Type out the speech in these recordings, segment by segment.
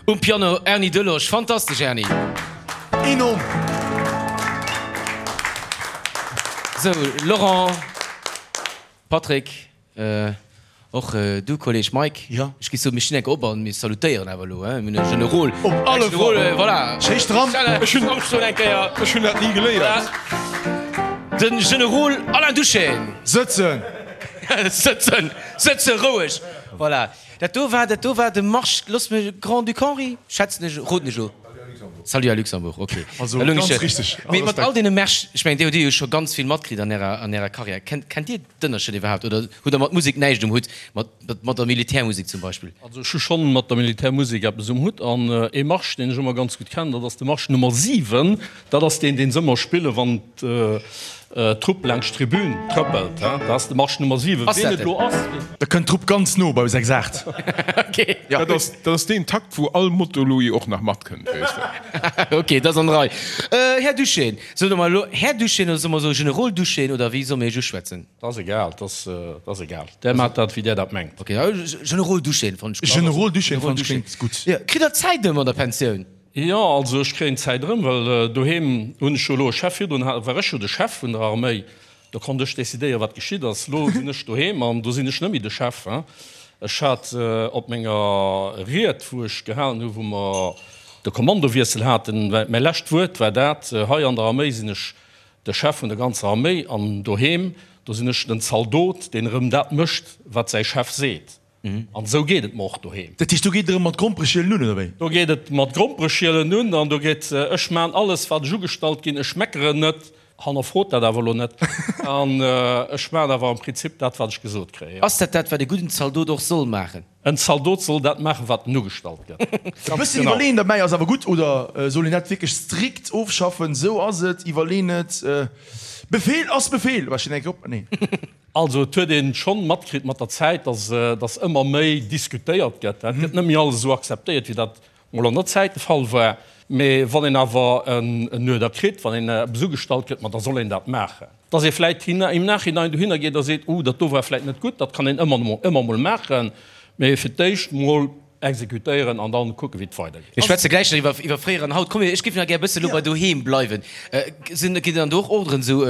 Um Piano Erny Delosch. Fantastesch Erny! Enorm! Sou, Laurent, Patrick, och du Kolleg Mike. Jo. Ech géif soen, mir stinn enk op an mir salutéieren awer elo, hein? Mir hunn e Generol. Op alle Fall! Voilà! Schéi stramm! Ech hunn eng Kéier. Ech hunn dat ni geléiert. Voilà. Den Generol Alain Duschène. Sëtzen! Sëtzen! Sëtzen! Roueg! Voilà. Dat do war, dat do war de Marsch, looss mech, Grand-Duc Henri, schätzen ech, roden ech elo. Salut à Luxembourg, ok. Also ganz richteg. Mee mat all deene Märsch, ech mengen, dir hutt jo scho ganz vill matkritt an ärer, an ärer Karriär. Kennt, kennt Dir d'Ënnerscheed iwwerhaapt oder hutt Der mat Musek näischt um Hutt, mat, mat der Militärmusek zum Beispill? Also ech hu schonn mat der Militärmusek eppes um Hutt an ee Marsch, deen ech ëmmer ganz gutt kennen, dat ass de Marsch Nummer 7. Dat ass deen, deen se ëmmer spillen, wann d'Trupp laanscht d'Tribün trëppelt. Dat ass de Marsch Nummer 7. Ass Ween dat et elo den? ass? Da kënnt d'Trupp ganz no bei 6, 8. Ok. Dat ass, dat ass deen Takt, wou all Moto-Louis och nach matkënnt, weess de. Ok, dat ass an der Rei. Här Duschène, soe mer elo Här Duschène oder soe mer esou Generol Duschène oder wéi solle mir Iech uschwätzen? Dat ass egal, dat ass, dat ass egal. Där maacht dat, wéi där dat mengt. Ok, Generol Duschène fannen ech. Generol Duschène fannen ech kléngt gutt. Jo, kritt Der Zäit ëm an der Pensioun? Jo, also ech kréien d'Zäit erëm, well doheem hunn ech jo elo e Chef. Virdrun war ech jo de Chef vun der Arméi, do konnt ech decidéieren, wat geschitt ass. Elo sinn ech doheem an do sinn ech net méi de Chef. Ech hat op menger Ried, wou ech gehalen hu wou mer de Kommandowiessel haten, mäi lescht Wuert war dat, Hei an der Arméi sinn ech de Chef vun der ganzer Arméi an doheem, do sinn ech den Zaldot, deen erëm dat mécht, wat säi Chef seet. An esou geet et mer och doheem. Dat heescht, do geet et erëm mat Grompereschielen un, oder wéi? Do geet et mat Grompereschielen un an do geet, ech maan alles, wat ech ugestallt ginn, ech meckeren net, hannerfrot dat awer elo net, an ech maan awer am Prinzip dat, wat ech gesot kréien. Ass dat dat, wat e gudden Zaldot och soll maachen? En Zaldot soll dat maachen, wat en ugestallt gëtt. E bësschen iwwerleeën derbäi ass awer gutt, oder soll een dat wierklech strikt ofschaffen? Esou ass et, iwwerlee net, Befehl ass Befehl! War ech op? Nee. Also et huet een schonn matkritt mat der Zäit, dass dass ëmmer méi diskutéiert gëtt. Et gëtt net méi alles esou akzeptéiert, wéi dat mol an der Zäit de Fall war. Mee wann een awer en Uerder kritt, wann een eppes ugestallt kritt, ma da soll een dat maachen. Dass ee vläit im Nachhinein dohinner geet a seet, oh dat do war vläit net gutt, dat kann een ëmmer ëmmer mol maachen. Mee fir d'éischt mol Exekutéieren an dann kucken, wéi et weidergeet. Mir schwätze gläich nach iwwer iwwer fréier an haut. Komm, ech géif nach gär e bësse lo bei doheem bleiwen. Sinn, ginn dann do och Orderen esou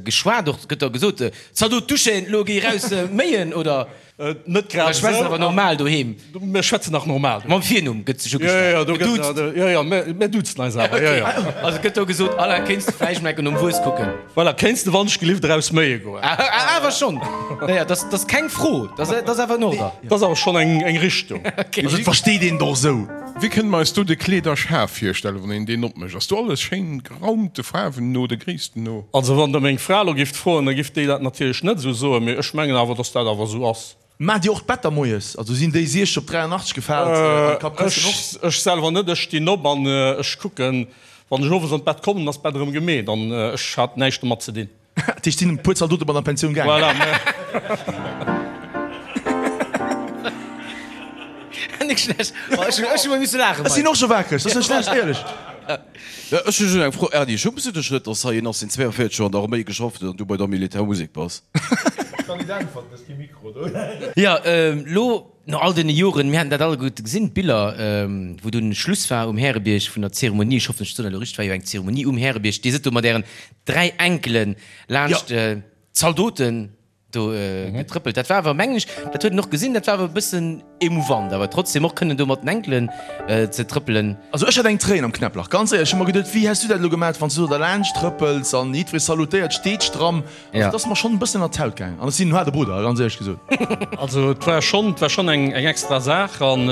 geschwat och? Gëtt da gesot, Zaldot duschen, lo géi raus méien, oder? Net grad Oder schwätzt esou. awer normal doheem? Mir schwätzen nach normal doheem. Mam Virnumm gëtt sech Jo, jo, ugeschwat, do gëtt, geduuzt? jo, jo, mir, mir duzen eis awer, jo, jo. Also gëtt do gesot, Alain, kéints de vläicht mol enke nom Wues kucken? Voilà, kéints de wannechgelift eraus méie goen? Awer schonn! Naja, dat ass keng Fro, dat ass awer en Order. Dat ass awer schonn eng Richtung. Also et versteet een et och esou. Wéi kënne mer eis do de Kleederschaf virstellen, wann een deen opmécht? Ass do alles schéin geraumt, de Faarwen no, de Gréissten no? Also wann Der meng Fra elo gifft froen, da giff déi dat natierlech net esou soen, mee ech mengen awer, dass dat awer esou ass. Maacht Dir och d'Better moies? Also sinn déi 60 op 83 gefaalt an d'Kappkëssen och? Ech selwer net, ech stinn op an ech kucken, wann ech owes an d'Bett kommen, ass d'Bett erëm gemeet an ech hat näischt domat ze dinn. Dat heescht, sinn e puer Zaldote mat an d'Pensioun gaangen? Voilà. Net schlecht. Ech hu mol misse laachen. Ech sinn och scho wakereg, dat ass net schlecht, éierlech. Ech hu just eng Fro, Erny, schumms du dech net, dass hei een ass, deen 42 Joer an der Arméi geschafft huet an du bei der Militärmusek bass? Jo, lo no all deene Joren, mir haten dat alleguerte gesinn, d'Biller, wou dunn Schluss war um Härebierg vun der Zeremonie, ech hoffen, ech soen dat elo richteg, war jo eng Zeremonie um Härebierg, Dir sidd do mat Ären 3 Enkelen laanscht d'Zaldoten do getrëppelt. Dat war awer, mengen ech, dat huet een och gesinn, dat war awer e bëssen emouvant, awer trotzdem och kënnen do mat den Enkelen ze trëppelen. Also ech hat eng Tréin am Knäpplach, ganz éierlech. Ech hu mer geduet, wéi häss du dat elo gemat, wann s du do derlaanscht trëppels an jiddweree salutéiert, steet stramm. Also et ass mer schonn e bëssen an d'Haut gaangen an ech sinn en haarde Brudder, ganz éierlech gesot. Also et war schonn, et war schonn eng extra Saach an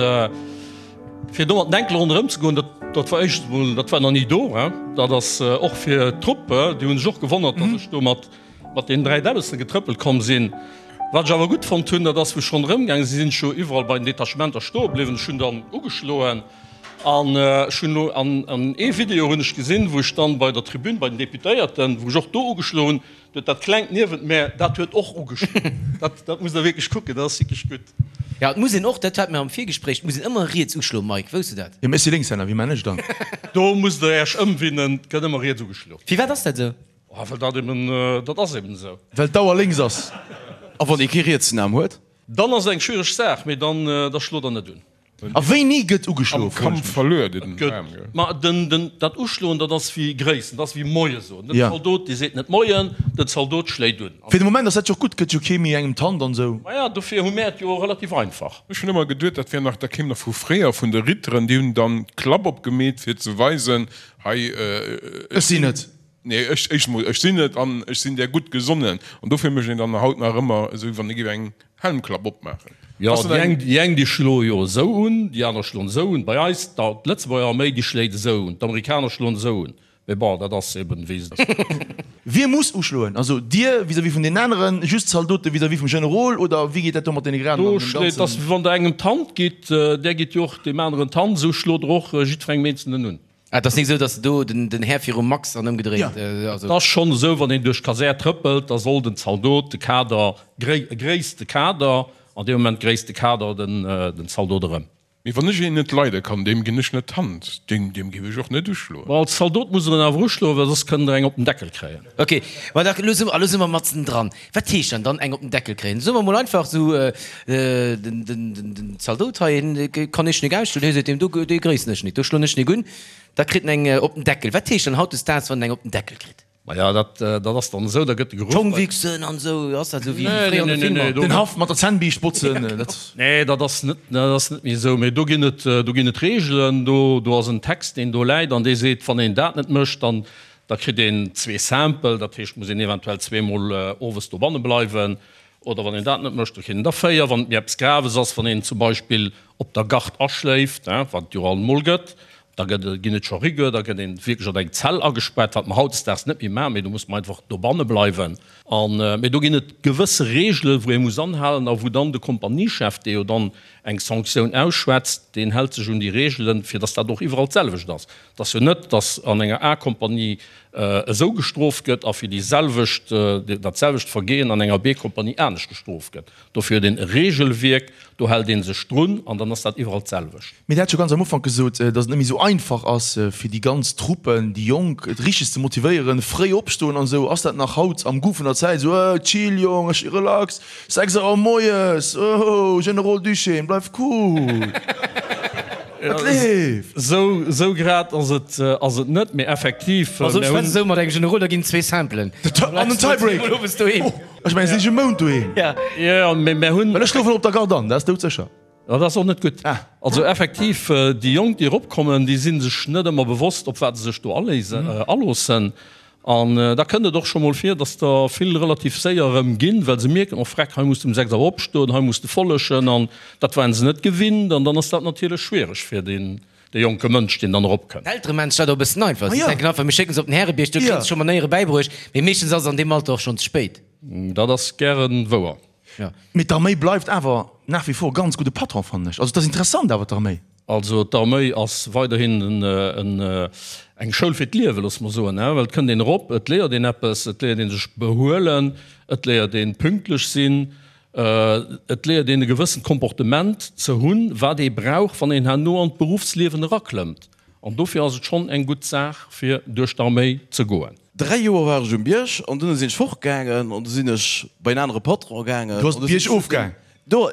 fir do mat den Enkele ronderëm ze goen, dat, dat war éischtens emol, dat war nach ni do, hein. Dat ass och fir d'Trupp, déi hu sech och gewonnert, datt ech do mat Mat deenen 3 Däbbessen getrëppelt komm sinn. Wat ech awer gutt fonnt hunn, dat ass, wou ech ronderëm gaange sinn, sinn ech jo iwwerall bei den Detachementer stoe bliwwen. Ech hunn dann ugeschloen an ech hunn elo an ee Video hunn ech gesinn, wou ech dann bei der Tribün bei den Deputéierten, wou ech och do ugeschloen hunn, do huet dat Klengt niewent mär, dat huet och ugeschloen. Dat, dat musst Der wierklech kucken, dat ass wierklech gutt. Jo, et muss een och, dat hate mir am Virgespréich, et muss een ëmmer riets uschloen, Mike, wousst du dat? Jo, mee ech si Lénkshänner, wéi man ech dann? Do musst Der Äech ëmwinnen, et gëtt ëmmer riets ugeschloen. Firwat ass dat esou? Oh, well dat eben, dat ass eben esou. Well d'Auer lénks ass. A wann ee kee rietsen Aarm huet? Dann ass et eng schwiereg Saach, mee dann, da schlot der net un. A wéini gëtt ugeschloe? Am Kampf verluer den Aarm, gell? Ma den, den, dat Uschloen, dat ass wéi Gréissen, dat ass wéi Moie soen. Den Zaldot, dee seet net Moien, den Zaldot schléit un. Fir de Moment ass dat jo och gutt, gëtt jo kee méi engem d'Hand an esou. Maja, dofir hu mär et jo relativ einfach. Ech hunn ëmmer geduet, dat wär nach, dat kéim nach vu fréier, vun de Ritteren, déi hunn dann d'Klapp opgemeet, fir ze weisen, hei, ech sinn et. Nee, ech, éischt emol, ech sinn et an ech sinn där gutt gesonnen. An dofir mécht een dann haut nach ëmmer esou, wéi wann ee géif eng Helmklapp opmaachen. Jo, déi eng, déi eng, déi schloe jo esou un, déi aner schloen esou un. Bei eis, d'Lëtzebuerger Arméi, déi schléit esou un, d'Amerikaner schloen esou un. Mee bon, dat ass eben, wéi se. Wie muss uschloen? Also Dir vis-à-vis vun deenen aneren, just d'Zaldote vis-à-vis vum Generol oder wéi geet dat do mat deene Graden Do an dem schléit, ganzen? ass wéi wann Der engem d'Hand gitt, där gitt jo och deem aneren d'Hand, esou schlot Der och jiddwerengem Eenzelnen un. Ah, et ass nik esou, dass do den Här virum Max an ëmgedréint. Et ass schonn esou, wann een duerch d'Kasär trëppelt, da soll den Zaldot de Kader, gréisst de Kader, an deem Moment gréisst de Kader den Zaldot erëm. Mee wann ech een net leide kann, deem ginn ech net d'Hand, deem géif ech och net uschloen. Ma als Zaldot muss der en awer uschloen, well soss kënnt der eng op den Deckel kréien. Ok, ma da elo si mer matzen dran. Wat heescht dann dann eng op den Deckel kréien? Soe mer mol einfach esou, den Zaldot hei, hien kann ech nik ausschloen, hie seet deem do, dee gréissen ech nik, do schloen ech nik un, da kritt en eng op den Deckel. Wat heescht dann hautdesdaags, wann en eng op den Deckel kritt? Maja, dat ass dann esou, da gëtt de geruff. D'Schong wichsen an esou, ass dat esou wéi fréier an de Filmer? Den Haff mat der Zännbiischt botzen, dat. Nee, dat ass net, dat ass net méi esou. Mee do ginn et, do ginn et Reegelen, do, do ass en Text, deen do läit an dee seet, wann een dat net mécht, dann Da kritt een zwee Sample, dat heescht, muss een eventuell zweemol owes dobanne bleiwen. Oder wann een dat net mécht, da kritt een der véier. Wann et méi eppes Graves ass, wann een zum Beispill op der Gard aschléift, wat et jo alt emol gëtt, da gëtt, ginn et scho Rigueur, da gëtt een wierklech an eng Zell agespaart, wat mer hautdesdaags net méi maachen, mee do muss mer einfach dobanne bleiwen. An, mee do ginn et gewësse Reegelen, wou ee muss anhalen a wou dann de Kompaniechef, dee jo dann eng Sanktioun ausschwätzt, deen hält sech un déi Reegelen, fir datt dat och iwwerall d'selwecht ass. Et ass jo net, datt an enger A-Kompanie esou gestrooft gëtt a fir déi selwecht, dat selwecht Vergehen an enger B-Kompanie anescht gestrooft gëtt. Dofir huet een e Regelwierk, do hält ee sech drun an dann ass dat iwwerall d'selwecht. Mee Der hat jo ganz am Ufank gesot, datt et net méi esou einfach ass, fir déi ganz Truppen, déi Jonk, et richteg ze motivéieren, fréi opstoen an esou. Ass dat nach haut am Goût vun der Zäit esou, Äh, chill Jong, ech relax, 6 Auer moies, oh, Generol Duchesne, bleif cool, et leeft. Sou, sou grad ass et, ass et net, mee effektiv, Also mir ech hunn. schwätz esou mat engem Generol, da ginn zwee Samplen. An en Tiebreak! Ech mengen, si si e Mount doheem. Jo, mee mir hunn. Well ech schlofen op der Garde an, dat ass doudsécher. Dat ass och net gutt. Also effektiv, déi Jonk, déi eropkommen, déi si sech net ëmmer bewosst, op wat se sech do aléisen, aloossen. An da kënnt et och scho mol vir, datt der vill relativ séier erëm ginn, well se mierken, oh freck, hei muss de um 6 Auer opstoen, hei muss de follechen. An dat waren se net gewinnt. An dann ass dat natierlech schwiereg fir deen, dee jonke Mënsch, deen dann eropkënnt. D'Eltere maachen sech dat och e bëssen einfach. Si denken einfach, mir schécken se op den Härebierg, do kréie se scho Manéiere bäibruecht. Mee meeschtens ass et an deem Alter och schonn ze spéit. Dat ass gäre wouer. Mee d'Arméi bleift awer nach wie vor ganz gudde Patron, fannen ech. Also et ass interessant awer d'Arméi. Also d'Arméi ass weiderhin eng Schoul fir d'Liewen, loosse mer soen, well et kënnt een erop, et léiert een eppes, et léiert ee sech behuelen, et léiert ee pünktlech sinn, et léiert een e gewëssent Comportement ze hunn, wat ee brauch, wann een herno an d'Beruffsliewen eraklëmmt. An dofir ass et schonn eng gutt Saach, fir duerch d'Arméi ze goen. 3 Joer war ech um Bierg an dunn sinn ech fortgaangen an du sinn ech bei en anere Patron gaangen. Du ass de Bierg ofgaang? Do,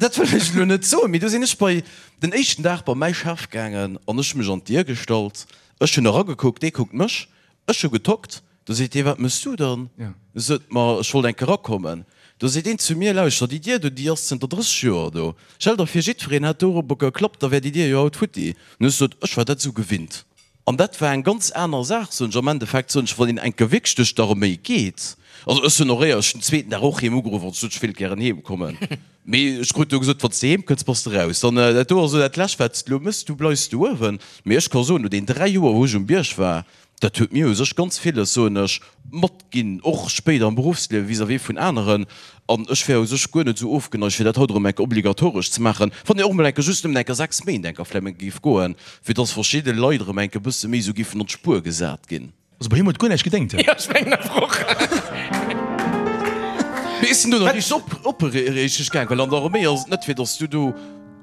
dat wëll ech elo net soen, mee du sinn ech bei den éischten Dag bei mäi Chef gaangen an ech hu mech an d'Dier gestallt. Ech hunn eragekuckt, dee kuckt mech, ech hu getockt. Do seet dee, Wat mëss du dann? Sot, Ma ech wollt eng Kéier erakommen. Do seet een zu mir, Lauschter, déi Dier do, déi ass zënter 30 Joer do. Stell der vir, jiddwereen hätt dorobber geklappt, da wär déi Dier jo haut futti. An ech sot, Ech war dat esou gewinnt. An dat war eng ganz aner Saach, soen ech. Am Endeffekt, soen ech, wann een eng Kéier wierklech duerch d'Arméi geet, also ech hunn och éier ech den zweeten Dag och heem ugeruff an sot, ech wéilt gären heem kommen. Mee ech krut do gesot, Wann s de heem kënns, bass de raus. Dann, dat do ass elo dat Lescht, wat s de elo méchs, du bleifs do uewen. Mee ech ka soen, no den 3 Joer, wou ech um Bierg war, Dat huet mir u sech ganz villes, soen ech, matginn, och spéider am Beruffsliewe vis-à-vis vun aneren. An ech wär u sech guer net esou ofgeneigt, fir dat haut erëm eng Kéier obligatoresch ze maachen, wann een och emol eng Kéier just nëmmen eng Kéier 6 Méint eng Kéier vläicht emol géif goen, fir dass verschidde Leit erëm eng Kéier e bësse méi esou géifen an d'Spuer gesat ginn. Also bei him huet guer näischt gedéngt. Jo, ech mengen awer och. Mee ech sinn do nach richteg op, opreechteg gaang, well an der Arméi ass et net, fir dass du do.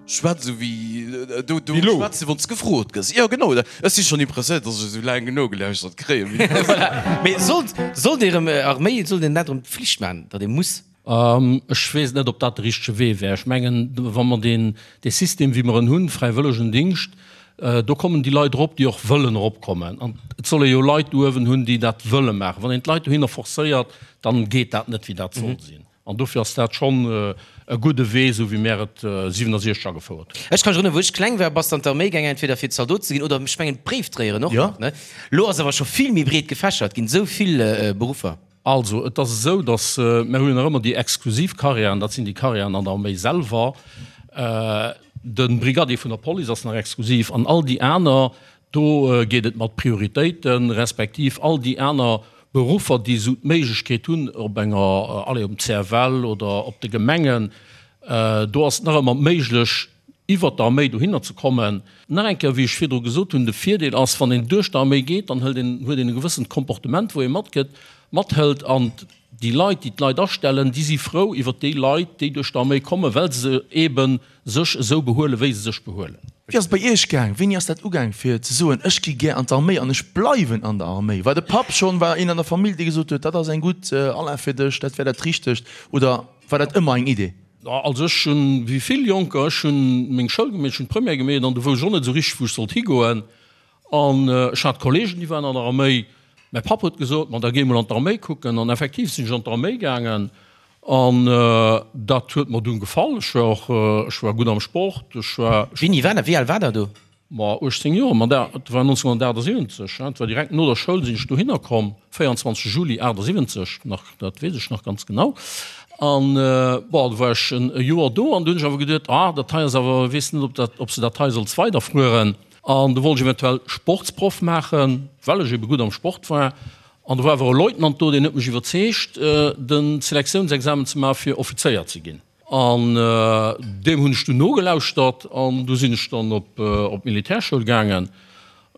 Schwätz esou wéi do do schwätze wann s gefrot gëss. Jo genau, ech si schonn impressionéiert, datt ech esou laang nogelauschtert kréien. Voilà. Mee sollt sollt ee rëm Arméi, sollt een dat rëm Pflicht maachen, datt ee muss? Ech weess net, ob dat de richtege Wee wär. Ech mengen, wa mer deen, dee System, wéi mer en hunn, fräiwëllegen Dingscht, do kommen déi Leit erop, déi och wëllen eropkommen. An et soll ee jo Leit do uewen hunn, déi dat wëlle maachen. Wann een d'Leit dohinner forcéiert, dann geet dat net, wéi dat soll sinn. An dofir ass dat schonn e gudde Wee, esou wéi mär et 67 agefouert hunn. Ech ka mech erënneren, wou ech kleng war, bass de an d'Arméi gaangen, entweder fir Zaldot ze ginn oder, ech mengen, Bréifdréieren och nach, ne? Lo ass awer scho vill méi breet gefächert ginn, esou vill Beruffer. Also, et ass esou, datt mär hu jo nach ëmmer déi exklusiv Karriären, dat sinn déi Karriären an der Arméi selwer. De Brigadier vun der Police ass nach exklusiv an all déi aner, Do geet et mat Prioritéiten, respektiv all déi aner Beruffer, déi esou d'Méiglechkeet hunn op enger, allez, um CFL oder op de Gemengen, do ass et nach ëmmer méiglech, iwwert d'Arméi dohinner ze kommen. Nach eng Kéier, wéi ech virdru gesot hunn, de Virdeel ass, wann een duerch d'Arméi geet, dann hëlt een, huet een e gewëssent Comportement, wou ee matgëtt, mathëlt an déi Leit, déi d'Leit astellen, déi si frou iwwert déi Leit, déi duerch d'Arméi kommen, well se eeben sech esou behuelen, wéi se sech behuelen. Wéi ass et bei Iech gaang? Wéini ass dat ugaang fir ze soen, ech gi gär an d'Arméi an ech bleiwen an der Arméi? War de Papp schonn, war een an der Famill, dee gesot huet, dat ass eng gutt Alain fir dech, dat wär dat Richtegt, oder war dat ëmmer eng Idee? Also ech hunn, wéi vill Jonker, ech hunn meng Schoul gemeet, ech hunn d'Première gemeet an du wousst ech och net esou richteg, wou ech sollt higoen. An ech hat Kollegen, déi waren an der Arméi. Mäi Papp huet gesot, ma da géi mol an d'Arméi kucken. An effektiv sinn ech an d'Arméi gaangen an dat huet mer dunn gefall. Ech war och, ech war gutt am Sport, ech war. Wéini war dat? Wéi al war der do? Ma 18 Joer, ma dat war 1978, dat war direkt no der Schoul sinn ech dohinner komm, 24 Juli 78 nach, dat weess ech nach ganz genau. An bon, du war ech e Joer do an du hunn ech awer geduet, ah dat hei ass awer, weess net ob dat, ob s de dat hei solls weiderfueren. An du wollt ech eventuell Sportsproff maachen, well ech ebe gutt am Sport war. An do war awer e Leutnant do, deen huet mech iwwerzeegt, de Selektiounsexamen ze maachen, fir Offizéier ze ginn. An deem hunn ech dunn nogelauschtert an du sinn ech dann op d'Militärschoul gaangen.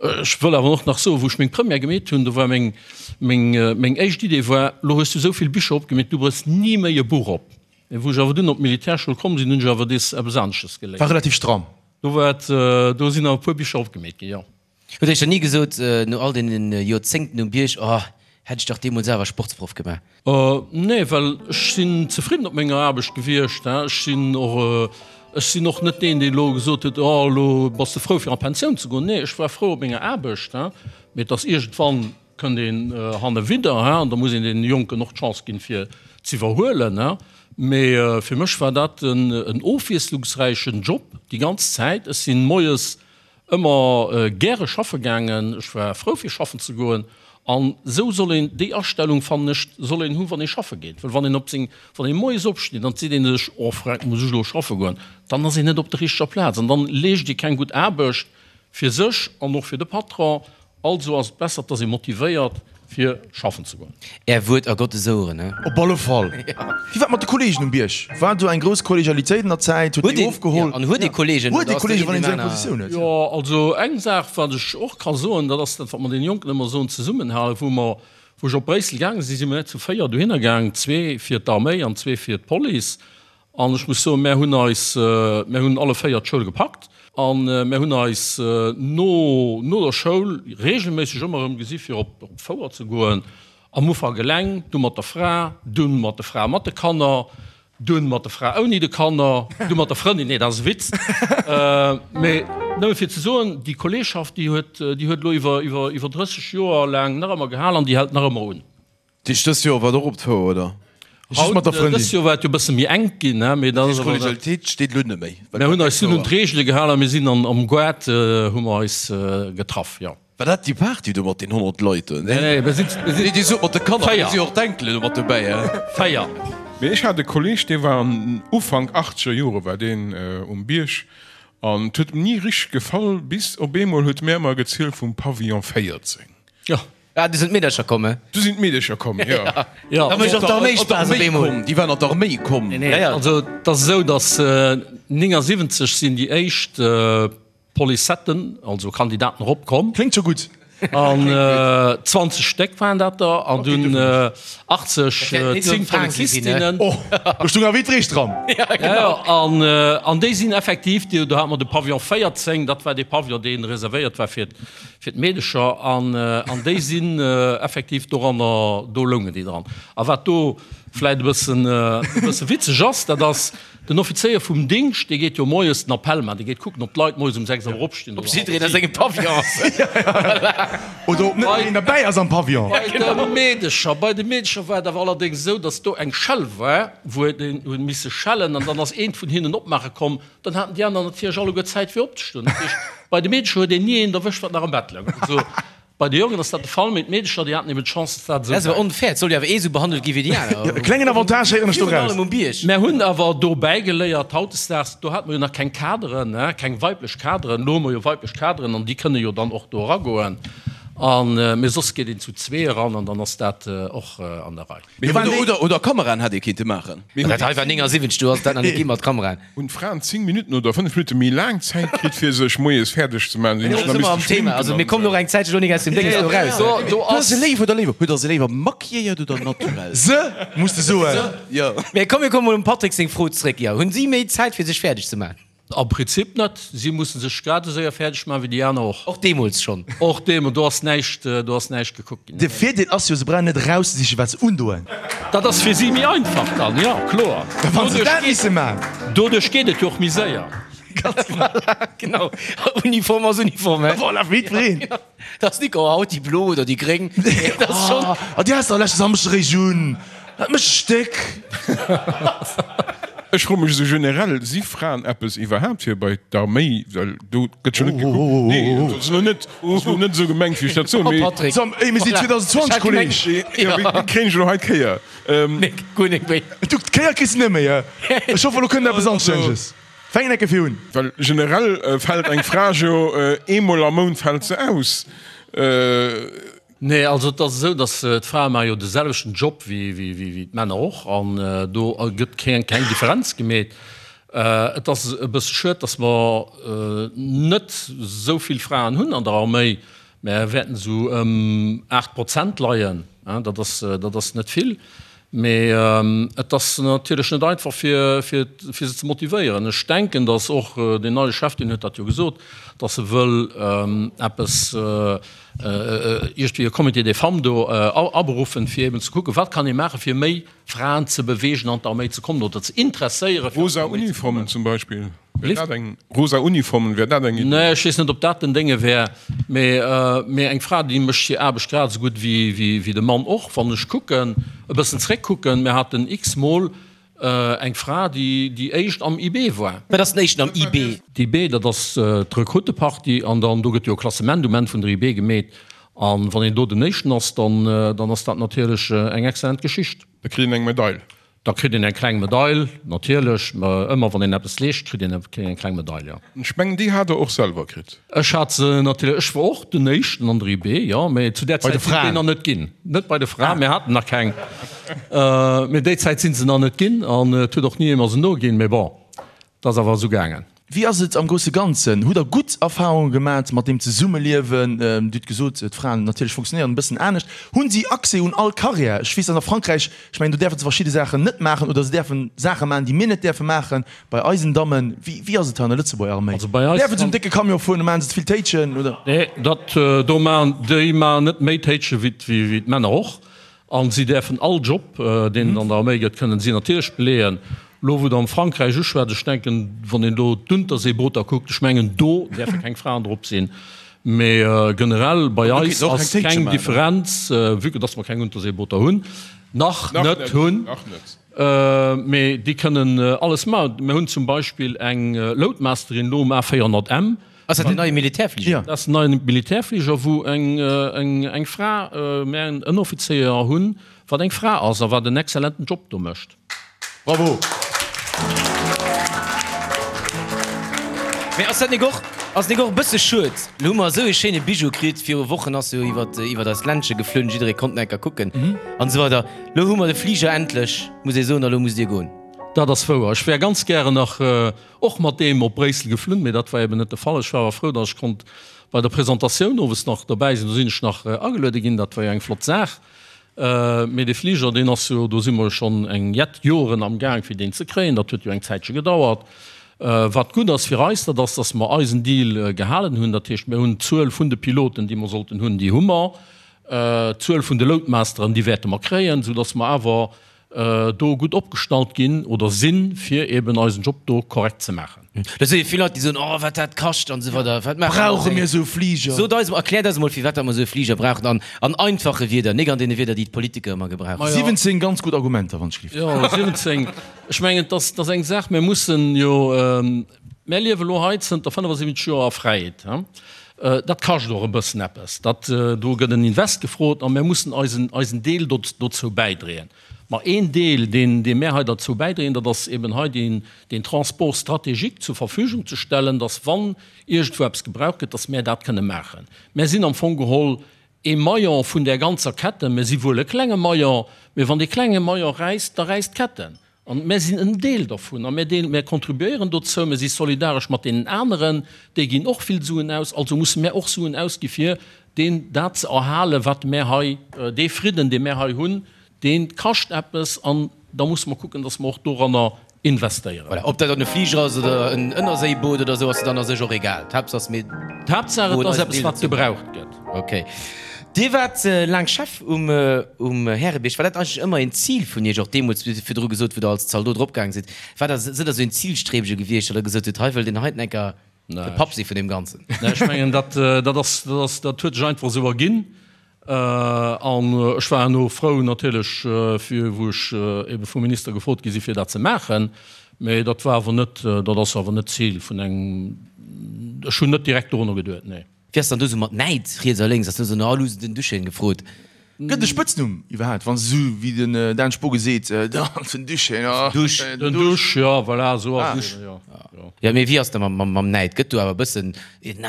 Ech wëll awer och nach soen, wou ech meng Première gemeet hunn, do war meng, meng, meng éischt Idee war, Lo hues du esou vill Bicher opgemeet, du brauchs ni méi e Buch op. Mee wou ech awer dunn op d'Militärschoul komm sinn, hunn ech awer dees eppes anesches geléiert. War relativ stramm. Do war et, do sinn awer e puer Bicher opgemeet ginn, jo. Hutt Iech dann ni gesot, no all deenen Joerzéngten um Bierg, oh, hätt ech dach deemools awer Sportsproff gemaach? Nee, well ech sinn zefridden op menger Aarbecht gewiescht. Ech sinn och, ech sinn och net deen, deen elo gesot huet, oh, elo bass de frou fir an d'Pensioun ze goen. Nee, ech war frou op menger Aarbecht, mee et ass iergendwann kënnt een hanne widder, an da muss een deene Jonken och d'Chance ginn, fir z'iwwerhuelen. Mee fir mech war dat en ofwiesslungsräichen Job déi ganz Zäit. Ech sinn moies ëmmer gäre schaffe gaangen, ech war frou fir schaffen ze goen. An esou soll een, déi Astellung fannen ech, soll een hunn, wann ee schaffe geet. Well wann een op seng, wann ee moies opsteet an et seet ee sech, oh freck, muss ech elo schaffe goen, dann ass een net op der richteger Plaz an dann leescht ee keng gutt Aarbecht fir sech an och fir de Patron. Also ass et besser, et ass ee motivéiert fir schaffen ze goen. Är Wuert a Gottes Oueren, he? Op alle Fall. Wéi war et mat de Kollegen um Bierg? War do eng grouss Kollegialitéit an der Zäit? Huet déi ofgeholl? An huet ee Kollegen? Huet ee Kollegen, wann een esou eng Positioun huet? Jo, also eng Saach, wat ech och ka soen, dat ass dat, wat mer deene Jonken ëmmer soen, Zesummenhalen. Wou mer, wou ech op Bréissel gaange sinn, si mer net zu 4 dohinner gaang, zwee fir d'Arméi an zwee fir d'Police. An ech muss soen, mär hunn eis, mär hunn alle 4 d'Schoul gepackt a mär hunn eis no no der Schoul regelméisseg ëmmer erëm gesi fir op d'Fouer ze goen. Am Ufank eleng, du mat der Fra, dunn mat der Fra mat de Kanner, dunn mat der Fra ouni de Kanner, du mat der Frëndin, nee dat ass e Witz, mee nëmme fir ze soen, déi Kolleegschaft, déi huet, déi huet elo iwwer iwwer iwwer 30 Joer laang nach ëmmer gehal an déi hält nach ëmmer un. Dich dëst Joer war et och op d'Fouer, oder? Just mat der Frëndin. Dëst Joer war et jo e bësse méi enk ginn, ne? Mee dat ass awer. D'Kollegialitéit steet elo net méi. Mir hunn eis dunn un d'Reegele gehalen a mir sinn an am Goart hu mer eis getraff, jo. War dat déi Party do mat den 100 Leit do? Nee, nee, mir sinn, mir sinn. Nee, Dir sot mat de Kanner, do si jo och d'Enkelen do mat dobäi, he? 4. Mee ech hat e Kolleg, dee war an Ufank achtzeger Jore war deen um Bierg an et huet em ni richteg gefall, bis op eemol huet mär emmer gezielt vum Pavillon 14. Jo. Ah, du sinn d'Meedercher komm, he? Du sinn d'Meedercher komm, jo. Jo. Da mécht och d'Arméi Spaass op eemol. Déi waren an d'Arméi komm. Nee, nee, also et ass esou, datt 79 sinn déi éischt Policetten, also Kandidaten erop komm. Kléngt scho gutt. An 20 Stéck waren dat der an dunn 80, 10 Polizistinnen. Oh, do stung awer Widrich dran. Ja, genau. An, an déi sinn effektiv, do hate mer de Pavillon 14, dat war dee Pavillon, dee reservéiert war fir fir d'Meedecher an an déi sinn effektiv doranner, do loungen déi dran. A wat do. vläit e bëssen, e bësse witzeg ass, dat ass, den Offizéier vum Dingscht, dee geet jo moies den Appell maachen, dee geet kucken, ob d'Leit moies um 6 Auer opstinn Ob jiddereen a sengem Pavillon ass. Oder ob net nach een derbäi ass am Pavillon. Bei de Meedecher, bei de Meedecher war et awer allerdéngs esou, datt do eng Schell war, wou een huet misse schellen an dann ass eent vun hinnen opmaache komm, dann haten déi aner natierlech alleguer Zäit fir opzestoen. Dat heescht, bei de Meedecher huet een ni een erwëscht, wat nach am Bett louch. Also Bei de Jongen ass dat de Fall, mee d'Meedecher déi haten eben d'Chance, dass dat esou Dat ass awer onfair, et soll jo awer ee sou behandelt gi wéi déi aner. E klengen Avantage héieren ech do Virun raus. allem um Bierg. Mär hunn awer do bäigeléiert, hautdesdaags, do hate mer jo nach keng Kaderen, keng weiblech Kaderen, elo hu mer jo weiblech Kaderen an déi kënne jo dann och do eragoen. An, mee soss geet een zu zwee eran an dann ass dat och an der Rei. Mee oder, oder Kameraen hätt ee kinnte maachen. Dat hei war 79, do ass dat nach net gi mat Kameraen. Hunn d'Fraen 10 Minutten oder 5 Minutte méi laang Zäit kritt fir sech moies fäerdeg ze maachen, sinn sech nach misste schminken an Mir kommen och eng Zäitche lo nik aus dem Dénges do raus. Do ass. Se léif oder léiwer? Huet der se léiwer maquilléiert oder naturell? Se, muss de soen. Jo. Mee komm, mir komme mol um Patrick seng Fro zréck. Jo, hunn si méi Zäit fir sech fäerdeg ze maachen? Am Prinzip net. Si musse sech grad esou séier fäerdeg maachen wéi déi aner och. Och deemools schonn? Och deemools. Do ass näischt, do ass näischt gekuckt ginn. De Virdeel ass jo, se brauchen net erauszesichen, wat se undoen. Dat ass fir si méi einfach dann, jo, kloer. Wann se dat misse man. Doduerch geet et jo och méi séier. Voilà, genau. Uniform ass Uniform, he? Voilà, fir jiddwereen. Dat ass nik, oh, haut déi blo oder déi gréng. Dat ass schonn. Ah, déi has de leschte Samschdeg eréischt un. Dat mécht dech déck. Ech froe mech esou generell, si Fraen eppes iwwerhaapt fir bei d'Arméi? Well do gëtt jo net gekuckt. Nee, dat ass elo net, ass elo net esou gemengt, wéi ech dat soen, mee. Patrick. Sam, ey, mir sinn 2020, Kolleg. Jo, wéi kréien ech elo hei d'Kéier? Nee, guer net méi. Du, d'Kéier kriss de net méi, he? Ech hoffen, elo kënnt eppes Anstänneges. Fänk en ecke fir un. Well generell fält eng Fra jo eemol am Mount fält se aus. Nee, also et ass esou, datt d'Frae maache jo de selwechten Job wéi d'Männer och an do gëtt keng Differenz gemeet. Et ass e bësse schued, datt mer net esou vill Fraen hunn an der Arméi. Mer wäerten esou ëm 8 Prozent leien, dat ass, dat ass net vill. Mee et ass natierlech net einfach fir se ze motivéieren. Ech denken, datt och deen neie Chef, deen huet dat jo gesot, datt e wëll eppes, iergendwéi e Comité des femmes do aberuffen, fir eben ze kucken, wat kann ee maachen, fir méi Fraen ze beweegen, an d'Arméi ze kommen oder ze interesséieren, fir an Rosa d'Arméi ze kommen. Uniformen zum Beispill, wär dat eng, rosa Uniformen, wär dat eng Iddi? Nee, ech weess net, ob dat den Dénge wär, mee, mee eng Fra, déi mécht hir Aarbecht grad esou gutt wéi, wéi de Mann och. Wann ech kucken, e bëssen zréckkucken, mir haten x-mol Eng Fra, déi déi éischt am IB war. Wat ass den éischten am IB? D'IB, dat ass d'Rekruteparty an dann do gëtt jo e Klassement um Enn vun der IB gemeet. A wann een do den éischten ass, dann dann ass dat natierlech eng excellent Geschicht. Da kritt een eng Medail. Da kritt een eng kleng Medail, natierlech. Ëmmer wann een eppes leescht, kritt een eng kleng Medail, jo. Ech mengen, déi hat Der och selwer kritt. Ech hat se natierlech, ech war och den éischten an der IB, jo, mä zu där Zäit sinn déi nach net ginn. Net bei de Fraen, mir haten nach keng, mä déi Zäit sinn se nach net ginn an et huet och ni ee mer se noginn, mä bon, et ass awer esou gaangen. Wéi ass et am grousse Ganzen? Hutt Der gutt Erfahrunge gemat mat deem Zesummeliewen? Dir hutt gesot, d'Fraen natierlech funktionéieren e bëssen anescht. Hunn si Accès un all Carrière? Ech weess, dass a Frankräich, ech mengen, do däerfe se verschidde Saachen net maachen oder se däerfe Saache maachen, déi mir net däerfe maachen. Bei eisen Dammen, wéi, wéi ass et hei an der Lëtzebuerger Arméi? Also bei eis Däerfen se um décke Camion fueren, maachen se ze vill Téitschen, oder? Nee, dat do maachen, déi maachen net méi Téitsche wéi, wéi d'Männer och. A si däerfen all Job, deen et an der Arméi gëtt, kënnen si natierlech beleeën. Elo wou Der am Frankräich uschwätzt, ech denken, wann een do d'Unterseebooter kuckt, ech mengen do däerfe keng Fraen drop sinn. Mee generell bei eis ass keng Differenz, vue que dass mer keng Unterseebooter hunn, nach net hunn. Mee déi kënnen alles maachen. Mir hunn zum Beispill eng Loadmasterin elo um A400M. Ass dat den neie Militärfliger? Dat ass den neie Militärfliger, wou eng Fra, mir en Ënneroffizéier hunn, wat eng Fra ass a wat en exzellenten Job do mécht. Bravo! Mee ass dat nik och, ass nik och e bësse schued? Lo hu mer esou ee schéine Bijou kritt, viru Wochen ass jo iwwert, iwwert eist Ländche geflunn, jidderee konnt en enker kucken an esou weider. Lo hu mer de Fliger endlech, muss ee soen, a lo musst Dir goen. Dat ass wouer. Ech wär ganz gären nach och mat deem op Bréissel geflunn, mee dat war eben net de Fall. Ech war awer frou, datt ech konnt bei der Presentatioun owes nach dobäi sinn. Do sinn ech nach ageluede ginn, dat war jo eng flott Saach. Mee dee Fliger, deen ass jo, do si mer jo schonn eng jett Joren am Gaang fir deen ze kréien. Dat huet jo eng Zäitche gedauert. Wat gutt ass fir eis, dat ass, datt mer eisen Deal gehalen hunn. Dat heescht, mir hunn d'Zuel vun de Piloten, déi mer sollten hunn, déi hu mer. D'Zuel vun de Loadmasteren, déi wäerte mer kréien, soudatt mer awer. do gutt opgestallt ginn oder sinn, fir eben eisen Job do korrekt ze maachen. Dat si jo vill Leit, déi soen, oh wat dat kascht an esou weider. Wat maache mer Brauche mir esou Fliger? Sot eis, erkläert eis emol, firwat dat mer esou e Fliger brauchen an an einfache Wierder, nik an deene Wierder, déi d'Politiker ëmmer gebrauchen. 17 ganz gutt Argumenter, wann ech gelift. Jo, 17. Ech mengen, et ass, et ass eng Saach, mir mussen jo, mir liewe elo hei zënter 75 Joer a Fräiheet. Dat kascht och e bëssen eppes. Dat, do gëtt en Invest gefrot a mir mussen eisen, eisen Deel dozou bäidréen. Ma een Deel, deen, dee mär hei derzou bäidréien, dat ass eben hei deen, deen Transport stratégique zur Verfügung ze stellen, dass, wann iergendwou eppes gebraucht gëtt, dass mär dat kënne maachen. Mär sinn am Fong geholl ee Maillon vun där ganzer Kette. Mär si wuel e klenge Maillon, mä wann dee klenge Maillon räisst, da räisst d'Kette. An mär sinn en Deel dervun a mär deel, mär contribuéieren dozou, mär si solidaresch mat deenen aneren, déi ginn och vill Suen aus, also musse mär och Suen ausgi fir deen, dat ze erhalen, wat mär hei, dee Fridden, dee mär hei hunn, dee kascht eppes an da musse mer kucken, datt mer och doranner investéieren. Voilà, ob dat dann e Fliger ass oder en Ënnerséiboot oder esou, ass dann a sech och egal. D'Haaptsaach ass, mir D'Haaptsaach, et ass eppes, wat gebraucht gëtt. Ok. Dir waart laang Chef um um Härebierg. War dat eigentlech ëmmer een Zil vun Iech, och deemools, wéi Der virdru gesot, wou Der als Zaldot eropgaange sidd? War der, sidd Der esou een Zilstrebege gewiescht, datt Der gesot hutt, hei wëllt een heiten enker de Papp si vun deem Ganzen? Nee, ech mengen, dat, dat ass, dat ass, dat huet sech einfach esou erginn. An ech war herno frou natierlech, fir wou ech ebe vum Minister gefrot gi si fir dat ze maachen. Mee dat war awer net, dat ass awer net d'Zil vun engem, ech hunn net direkt dorunner geduet, nee. Wéi ass dann do sou mat Näid riets a lénks? Ass do sou no all hu se den Duchenne gefrot? Gëtt e Spëtznumm iwwerhaapt, wann se sou wéi den Dan Spogen seet, den Duchenne, oh den Den Dusch, jo voilà, sou ass et, jo. Jo, mee wéi ass da mam Näid? Gëtt do awer e bëssen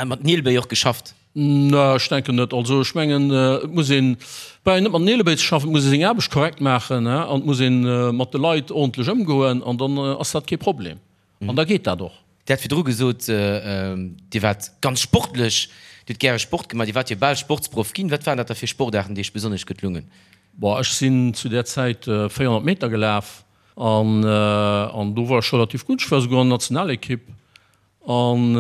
mat Nielbéi och geschafft? Nee, ech denken net. Also ech mengen, et muss een, brauch een net mat Nielebéi ze schaffen, et muss ee seng Aarbecht korrekt maachen an et muss ee mat de Leit ordentlech ëmgoen an dann ass dat kee Problem. An da geet dat och. Dir hat virdru gesot, Dir waart ganz sportlech, Dir hutt gäre Sport gemaach, Dir waart jo bal Sportsproff ginn. Wat waren dat da fir Sportaarten, déi Iech besonnesch gutt lungen? Bon, ech sinn zu där Zäit 400 Meter gelaf an do war ech relativ gutt. Ech war souguer an der Nationalekipp. An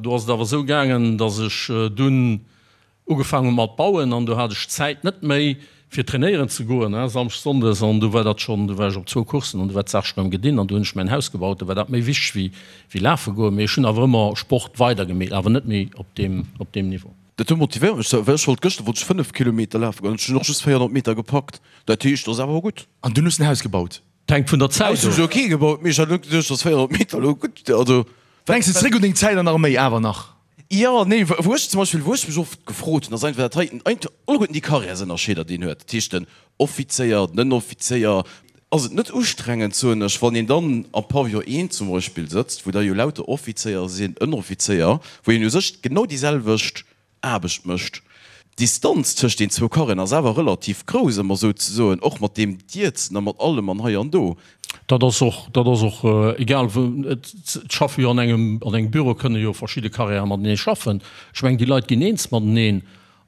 do ass et awer esou gaangen, datt ech dunn Ugefaang hu mat bauen an do hat ech d'Zäit net méi fir trainéieren ze goen, Samschdes, Sonndes, an du war dat schonn, du war ech op zwou Coursen an du war d'Saach schonn erëm gedinn an du hunn ech mäin Haus gebaut, du war dat méi wichteg wéi wéi lafe goen. Mee ech hunn awer ëmmer Sport weider gemeet, awer net méi op deem op deem Niveau. Dat do motivéiert mech, well ech wollt gëschter wollt ech 5 Kilometer lafe goen, ech hunn och just 400 Meter gepackt, dat heescht, dat ass awer gutt. An dunn hues de en Haus gebaut? D'hänkt vun der Zäit of. Haus hunn ech elo kee gebaut, mee ech hat elo geduecht, dass 400 Meter elo gutt, also. Denks de zréck un deng Zäit an der Arméi awer nach? Jo, nee, wou ech zum Beispill, wou ech mech oft gefrot hunn, ass einfach dat heiten, alleguerten déi Karriärsënnerscheeder, déi een huet, dat heescht den Offizéier, den Ënneroffizéier, ass et net ustrengend, soen ech, wann een dann am Pavillon I zum Beispill sëtzt, wou da jo lauter Offizéier sinn, Ënneroffizéier, wou een u sech genau déi selwecht Aarbecht mécht. D'Distanz tëscht den zwou Karren ass awer relativ grouss, ëmmer souzesoen, och mat deem Dierzen a mat allem an hei an do. Dat ass och, dat ass och egal wou. Et schaffe jo an engem, an engem Büro kënne jo verschidde Carrièrë matenee schaffen. Ech mengen, déi Leit ginn eens mateneen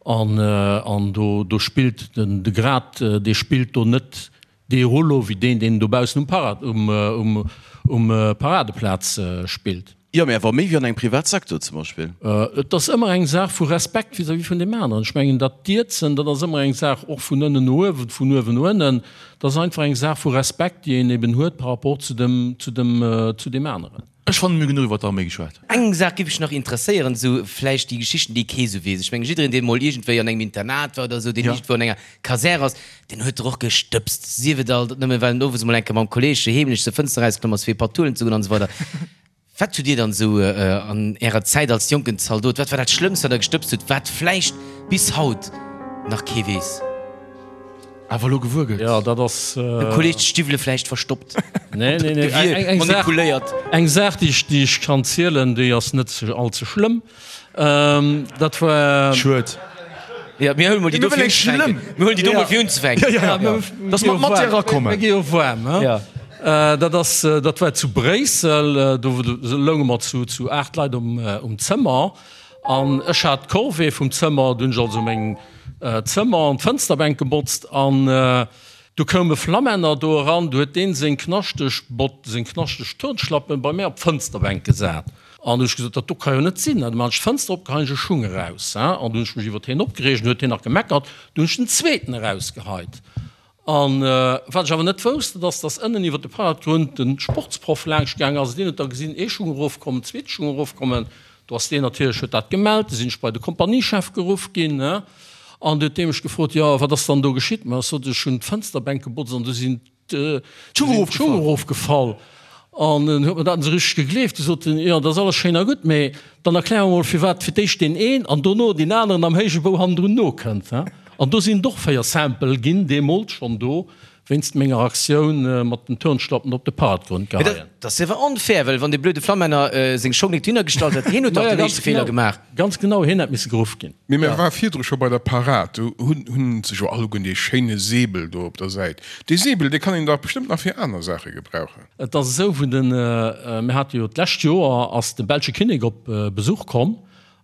an, an do, do spillt den, de Grad, dee spillt do net Dee Rouleau wéi deen, deen dobaussen um Parad, um, um, um Paradeplaz spillt. Jo, mä awer méi wéi an engem Privatsecteur zum Beispill. Et ass ëmmer eng Saach vu Respekt vis-à-vis vun deem aneren. Ech mengen, dat Dierzen, dat ass ëmmer eng Saach och vun ënnen no uewen, vun uewen no ënnen. Dat ass einfach eng Saach vu Respekt, déi een eben huet par rapport zu dem, zu dem, zu deem aneren. Ech fannen, mir hu genuch iwwer d'Arméi geschwat. Eng Saach giff mech nach interesséieren, esou vläicht déi Geschichten, déi kee sou weess. Ech mengen, jiddereen, deen mol iergendwéi an engem Internat war oder esou, deen iergendwou an enger Kasär ass, deen huet der och gestëbst. Sief et alt nëmmen, well en owes mol eng Kéier mam Kolleeg heemlech zur Fënster erausklomm ass, fir e Patt huelen ze goen an esou weider. Wat hutt Dir dann esou an Ärer Zäit als jonken Zaldot, wat war dat Schlëmmst, wat Der gestëbst hutt, wat vläicht bis haut nach kee weess? Awer elo gewuer gëtt. Jo, dat ass. Dem Kolleg d'Stiwwele vläicht verstoppt. Nee, nee, nee. Eng, eng Saach, Manipuléiert. eng Saach, déi ech, déi ech kann zielen, déi ass net ze, all ze schlëmm. Dat war. Schued. Ja, mir huele mol déi do fir unzefänken. Mir huelen déi do mol fir unzefänken. Ja, ja, ja. Dass mer d'Matière erakommen. Mir gi jo waarm, he? Ja. Dat ass, dat war zu Bréissel. Do lounge mer zu, zu 8 Leit um, um Zëmmer. An ech hat d'Corvée vum Zëmmer. Do hunn ech also meng. Zëmmer an d'Fënsterbänk gebotzt an du koum e Flammänner do eran, du huet deen seng knaschteg Bott, seng knaschteg Turnschlappen bei mär op d'Fënsterbänk gesat an du hu ech gesot, dat do ka jo net sinn. An du man ech d'Fënster op, geheien ech e Schung eraus, hein, an du hunn ech mech iwwert hien opgereegt, an du huet hien nach gemeckert, du hunn ech den zweeten erausgeheit. An wat ech awer net wousst, dat ass, dass ënnen iwwer de Paradgrund de Sportsproff laanscht gaang ass. Deen huet da gesinn, ee Schung erofkommen, zweete Schung erofkommen. Do ass deen natierlech, huet dat gemellt. Du sinn ech bei de Kompaniechef geruff ginn, ne? An du huet dee mech gefrot, jo, wat ass dann do geschitt? Ma ech sot, ech hunn d'Fënsterbänk gebotzt an du sinn d'Schung erofgefall. An en huet mer dat net esou richteg gegleeft. Du sot en, jo, dat ass alles schéin a gutt, mee dann erklär mer mol, firwat fir d'éischt deen een an dono deen aneren am héije Bou hannendrun nokënnt. An do sinn et och 4 Sample ginn, deemools schonn do, wéinst menger Aktioun mat den Turnschlappen op de Paradgrund geheien. Dat ass awer onfair, well wann dee blöde Flammänner seng Schong nik dohinner gestallt hätt, hien huet dach den éischte Feeler gemaach. Ganz genau, hien hätt misse geruff ginn. Mee mir ware virdru scho bei der Parad, do hunn se jo alleguer dee schéine Säbel do op der Säit. Dee Säbel, dee kann een dach bestëmmt nach fir aner Saache gebrauchen. Et ass esou, wou den, mir hate jo d'lescht Joer ass de belsche Kinnek op Besuch komm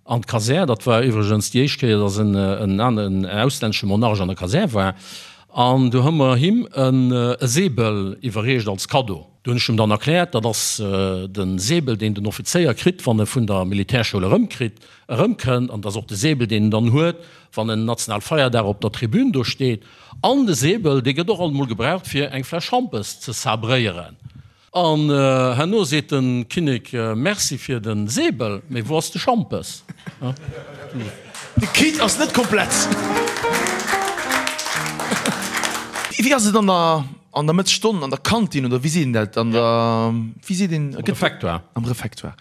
an d'Kasär. Dat war iwwregens déi éischt Kéier, datt en en auslännesche Monarch an der Kasär war. An do hu mer him e Säbel iwwerreecht als Kaddo. Do hunn ech him dann erkläert, dat ass de Säbel, deen den Offizéier kritt, wann e vun der Militärschoul erëmkritt, erëmkënnt. An dat ass och de Säbel, deen en dann huet, wann en Nationalfeierdag op der Tribün do steet. An de Säbel, dee gëtt och alt emol gebraucht, fir eng Fläsch Schampes ze sabréieren. An herno seet de Kinnek, Merci fir de Säbel, mee wou ass de Schampes? De Kit ass net komplett. Wéi ass et an der an der Mëttesstonn an der Kantin oder wéi seet een dat an der wéi seet een? Am Refektoire. Am Refektoire.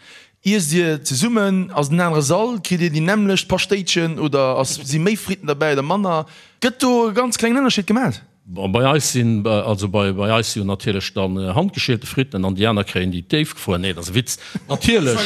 Iesst Dir zesummen? Ass et en anere Sall? Kritt Dir déi nämmlecht Paschtéitchen oder ass si méi Fritten derbäi oder manner? Gëtt do e ganz klengen Ënnerscheed gemat? Bon, bei eis sinn, also bei bei eis si jo natierlech dann handgeschielte Fritten an déi aner kréien déi déifgefruer. Nee, dat ass e Witz. Natierlech.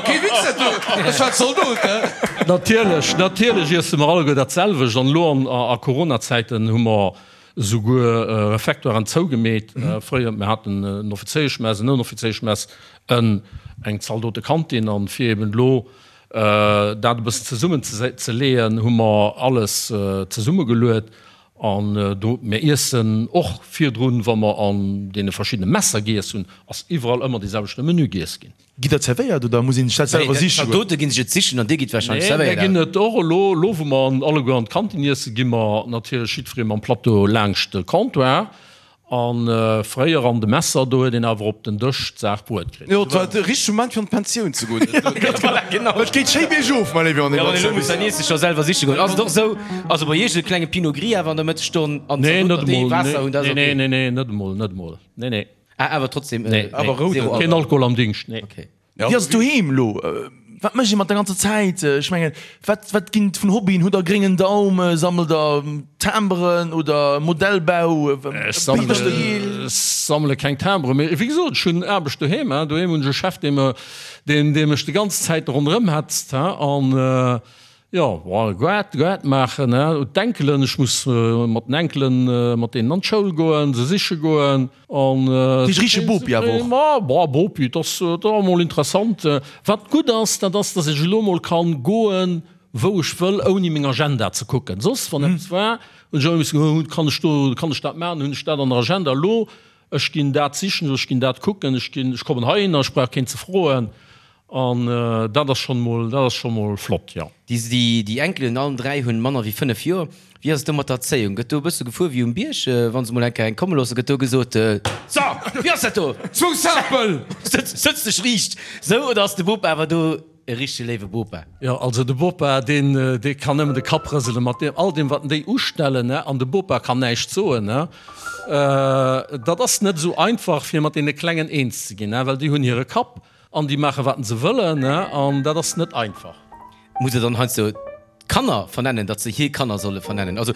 Kee Witz dat do, ech war Zaldot, he. Natierlech, natierlech iesse mer alleguer dat selwecht. An elo an a Coronazäiten hu mer esouguer Refectoiren zougemeet. Fréier, mir haten en Offizéieschmess, en Ënneroffizéieschmess, en eng Zaldotekantin. An fir eben elo dat e bëssen zesummen ze leeën, hu mer alles zesummegeluet. An do, mir iessen och virdrun, wa mer an deene verschiddene Messer giess hunn, ass iwwerall ëmmer dee selwechte Menü giess ginn. Gitt der zerwéiert oder muss een sech dat selwer siche goen? D'Zaldote ginn sech et sichen an dir gitt wahrscheinlech zerwéiert. Nee, mir ginn et och elo, elo wou mer alleguer an d'Kantin iessen, gi mer natierlech jiddweree mam Plateau laangscht de Comptoir. A fréier an de Messer, do huet een awer op den Dësch d'Saach bruet kritt. Jo, et war de richtege Moment fir an d'Pensioun ze goen. Voilà, genau. Et geet schéi biergof, mein léiwe André. Jo, elo muss der Niess sech scho selwer siche goen. Ass et och esou, also bei iech e klenge Pinot Gris awer an der Mëttesstonn an d'Zaldoten, déi Waasser hunn, dat ass ok? Nee, nee, nee, net emol, net emol, nee, nee. Ah, awer trotzdem nee, awer rouden. Zero Keen Alkohol am Dingscht, nee. Okay. Wéi ass et doheem elo? Wat mécht ee mat der ganzer Zäit? Ech mengen, wat, wat ginn et vun Hobbyen? Hutt der gréngen Daum? Sammelt der Timberen oder Modellbau? Ech sammele, sammele keng Timberen, mee wéi gesot, ech hunn Aarbecht doheem. Doheem hunn ech e Chef, dee me, deen, dee mech déi ganz Zäit ronderëm hetzt, an Jo, bon, Goart, Goart maachen, hein, d'Enkelen, ech muss mat den Enkelen, mat deenen an d'Schoul goen, se siche goen an. Dat heescht richtege Bopi awer och? Ma, bon, Bopi, et ass, et ass emol interessant. Wat gutt ass, dat ass, dass ech elo emol kann goen, wou ech wëll, ouni meng Agenda ze kucken. Soss, wann eppes war, hunn ech ëmmer missen, oh, kann ech do, kann ech dat maachen, hunn ech dat an der Agenda? Elo, ech ginn dat sichen, ech ginn dat kucken, ech ginn, ech kommen heihinner, ech brauch keen ze froen. An dat ass schonn mol, dat ass scho mol flott, jo. Déi Enkelen, allen 3, hunn manner wéi 5 Joer. Wéi ass et do mat der Erzéiung? Gëtt do e bësse gefuer wéi um Bierg? Wa se mol eng Kéier eng komme loossen, gëtt do gesot, So, wéi ass dat do? Zwou Sapel! Sëtz dech riicht! Sou, oder ass de Bopa awer do e richtege léiwe Bopa? Jo, also de Bopa, deen, dee kann nëmmen de Kapp rëselen mat deem, all deem, wat en déi ustellen, ne? An de Bopa kann näischt soen, ne? Dat ass net esou einfach, fir mat deene Klengen eens ze ginn, ne? Well déi hunn hire Kapp. An déi maache wat se wëllen, an dat ass net einfach. Muss der dann heiansdo d'Kanner vernennen, datt se hir Kanner solle vernennen? Also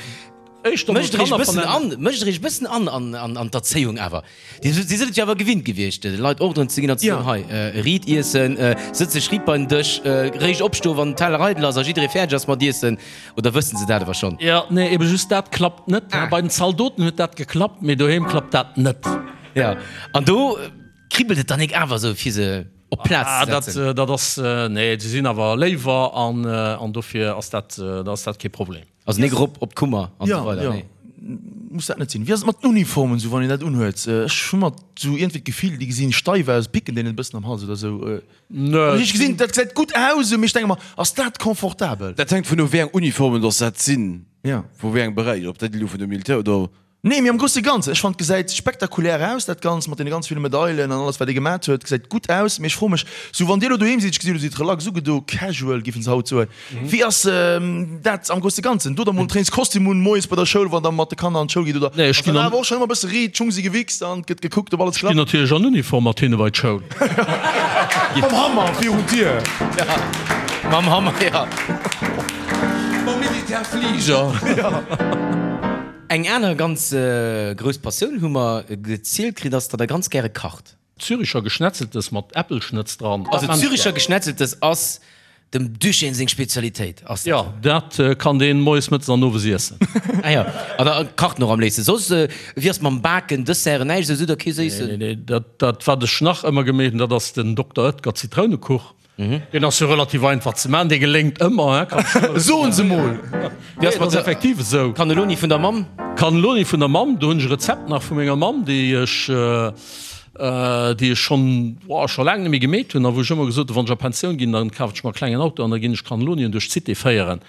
mécht der iech e bëssen an, mécht der iech e bëssen an an d'Erzéiung awer? Dir sidd et jo awer gewinnt gewiescht, de Leit Ordren ze ginn an ze soen, hei, riit iessen, sëtz dech riit bei den Dësch, réischt opstoen, wann den Teller eidel ass a jidderee fäerdeg ass mat iessen. Oder wëssen se dat awer schonn? Jo, nee, ebe just dat klappt net. Bei den Zaldoten huet dat geklappt, mee doheem klappt dat net. Jo, an do Kribbelt et dann nik awer esou fir se op d'Plaz ze setzen? Ah, dat ass, nee, se sinn awer léiwer an an dofir ass dat, da ass dat kee Problem. Also nik erop op d'Kummer an esou weider, nee? Jo, muss dat net sinn. Wéi ass et mat den Uniformen esou, wann een dat unhuet? Ech hu mat esou iergendwéi d'Gefill, déi gesinn steif aus, picken deenen e bëssen am Hals oder esou. Nee. Ech gesinn, dat gesäit gutt aus, mee ech denke mer, ass dat confortabel? Dat hänkt vun u wéi eng Uniformen dass dat sinn, Jo. vu wéi engem Beräich, ob dat elo vun dem Militär oder. Nee, mee am grousse Ganzen, ech fannen et gesäit spektakulär aus dat Ganzt mat deene ganz ville Medailen an alles wat ee gemat huet, gesäit gutt aus. Mee ech froe mech, sou wann dir elo doheem sidd, ech gesi elo sidd relax ugedo, casual giffen se haut soen, wéi ass dat am grousse Ganzen? Dot der mol en Trainingskostüm un moies bei der Schoul wann der mat de Kanner an d'Schoul gitt oder Nee, ech ass ginn dat an. awer och schonn ëmmer e bësse riit, d'Schung si gewichst an et gëtt gekuckt ob alles Ech ginn klappt? natierlech an Uniform mat hinne bei d'Schoul. Mam Hammer virun d'Dier. Mam Hammer, jo. Mam Militärfliger. Eng aner ganz grouss Passioun hu mer gezielt kritt, ass, datt der ganz gäre kacht. Züricher Geschnetzeltes mat Äppelschnëtz dran. Also Züricher Geschnetzeltes ass dem Duchesne seng Spezialitéit, ass dat? Jo, dat kann deen moies, mëttes an owes iessen. Ah jo, an e kacht en och am léifsten. Soss, wéi ass mam Baken, Desserten, näischt esou, sidd der kee Séissen? Nee, nee, dat, dat wat ech nach ëmmer gemeet hunn, dat ass den Dokter Oetker Zitrounekuch. Deen ass jo relativ einfach ze maachen, dee geléngt ëmmer, hein, kann ech nëmme Soen se mol! Wéi ass mat der effektiv esou. Cannelloni vun der Mamm? Cannelloni vun der Mamm, do hunn ech e Rezept nach vu menger Mamm, déi ech, déi ech schonn, boah, scho laang net méi gemeet hunn a wou ech ëmmer gesot hunn, wann ech a Pensioun ginn, dann kafen ech mer e klengen Auto an da ginn ech Cannellonien duerch d'Cité féieren.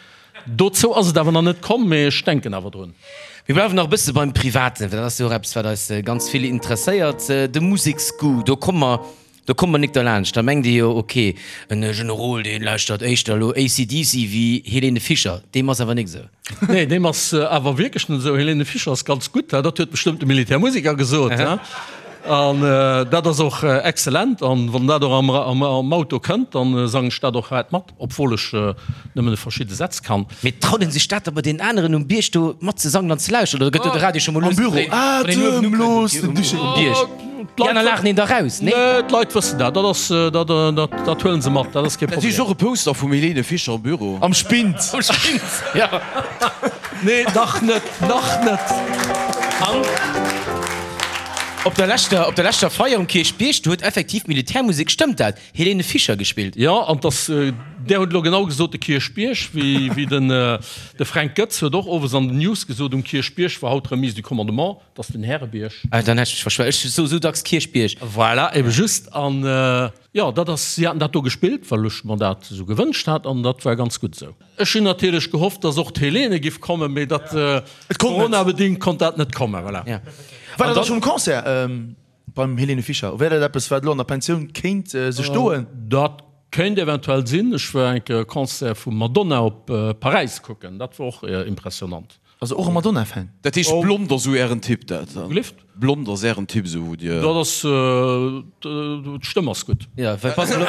Dozou ass et awer nach net komm, mee ech denken awer drun. Mir bleiwen nach e bësse beim Privaten, well dat ass jo och eppes, wat eis ganz vill interesséiert, de Museksgoût. Do komme mer Do kommt mer nik derlaanscht. Da mengt ee jo, ok, en Generol, dee lauschtert éischter elo AC/DC wéi Helene Fischer. Deem ass awer nik esou. Nee, deem ass awer wierklech net esou. Helene Fischer ass ganz gutt, dat huet bestëmmt de Militärmusiker gesot. An dat ass och exzellent. An wann dat och am Auto kënnt, da sangen ech dat och haart mat, obwuel ech nëmmen verschidde Sätz kann. Mee traut een sech dat da bei deenen aneren um Bierg do mat ze sangen an ze lauschteren? Oder gëtt do de Radio scho mol Am Büro, lues gedréint, wann een uewen atemlos ukënnt den Duché. um Bierg? Déi aner laachen een da raus, nee? Nee, d'Leit wëssen dat. Dat ass, dat, dat, dat huelen se mat. Dat ass kee Dat heescht Problem. och e Poster vum Helene Fischer am Büro. Am Spind. Am Spind, jo. Nee, nach net, nach net. An op der leschter, op der leschter Feier um Kierchbierg, do huet effektiv d'Militärmusek, stëmmt dat? Helene Fischer gespillt. Jo, an dass, där hutt elo genau gesot, de Kierchbierg, wéi, wéi den, de Fränk Goetz huet och owes an den News gesot, um Kierchbierg war haut Remise du commandement, dat ass den Härebierg. Ah, dann hätt ech mech verschwat. Ech soe sou dacks Kierchbierg. Voilà, ebe just. An, jo, dat ass, si haten dat do gespillt, well ech mer dat esou gewënscht hat, an dat war ganz gutt esou. Ech hunn natierlech gehofft, dass och d'Helene giff kommen, mee dat, coronabedingt konnt dat net kommen, voilà. War dat da schonn um Concert? Beim Helene Fischer, wär dat eppes wat elo an der Pensioun kéint sech doen? Dat kéint eventuell sinn. Ech war eng Kéier e Concert vum Madonna op Paräis kucken, dat war och impressionant. Also och e Madonna-Fan? Dat heescht blond ass esou ären Typ dat dann? Gelift? Blond ass ären Typ esou wou dir. Dat ass, d'Stëmm ass gutt. Jo, well pass elo,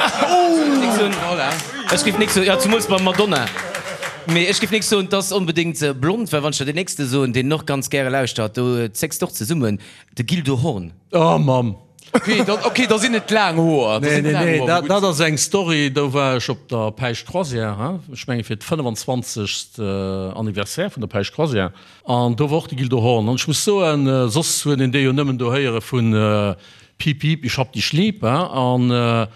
ech géif nik soen, jo zemools beim Madonna, mee ech géif nik soen, t'ass onbedéngt blond, well wann ech der deen nächste soen, deen och ganz gäre lauschtert, do zécks d'och zesummen, De Gildo Horn. Oh Mamm! Ok, da, ok, da sinn et laang Hoer. Nee, nee, nee, dat, dat ass eng Story, do war ech op der Päischt Croisière, hein, ech menge fir d'25. Anniversaire vun der Päischt Croisière, an do war och de Gildo Horn. An ech muss soen, soss huet een dee jo nëmmen do héiere vun Piep, piep, ich hab dich lieb, hein, an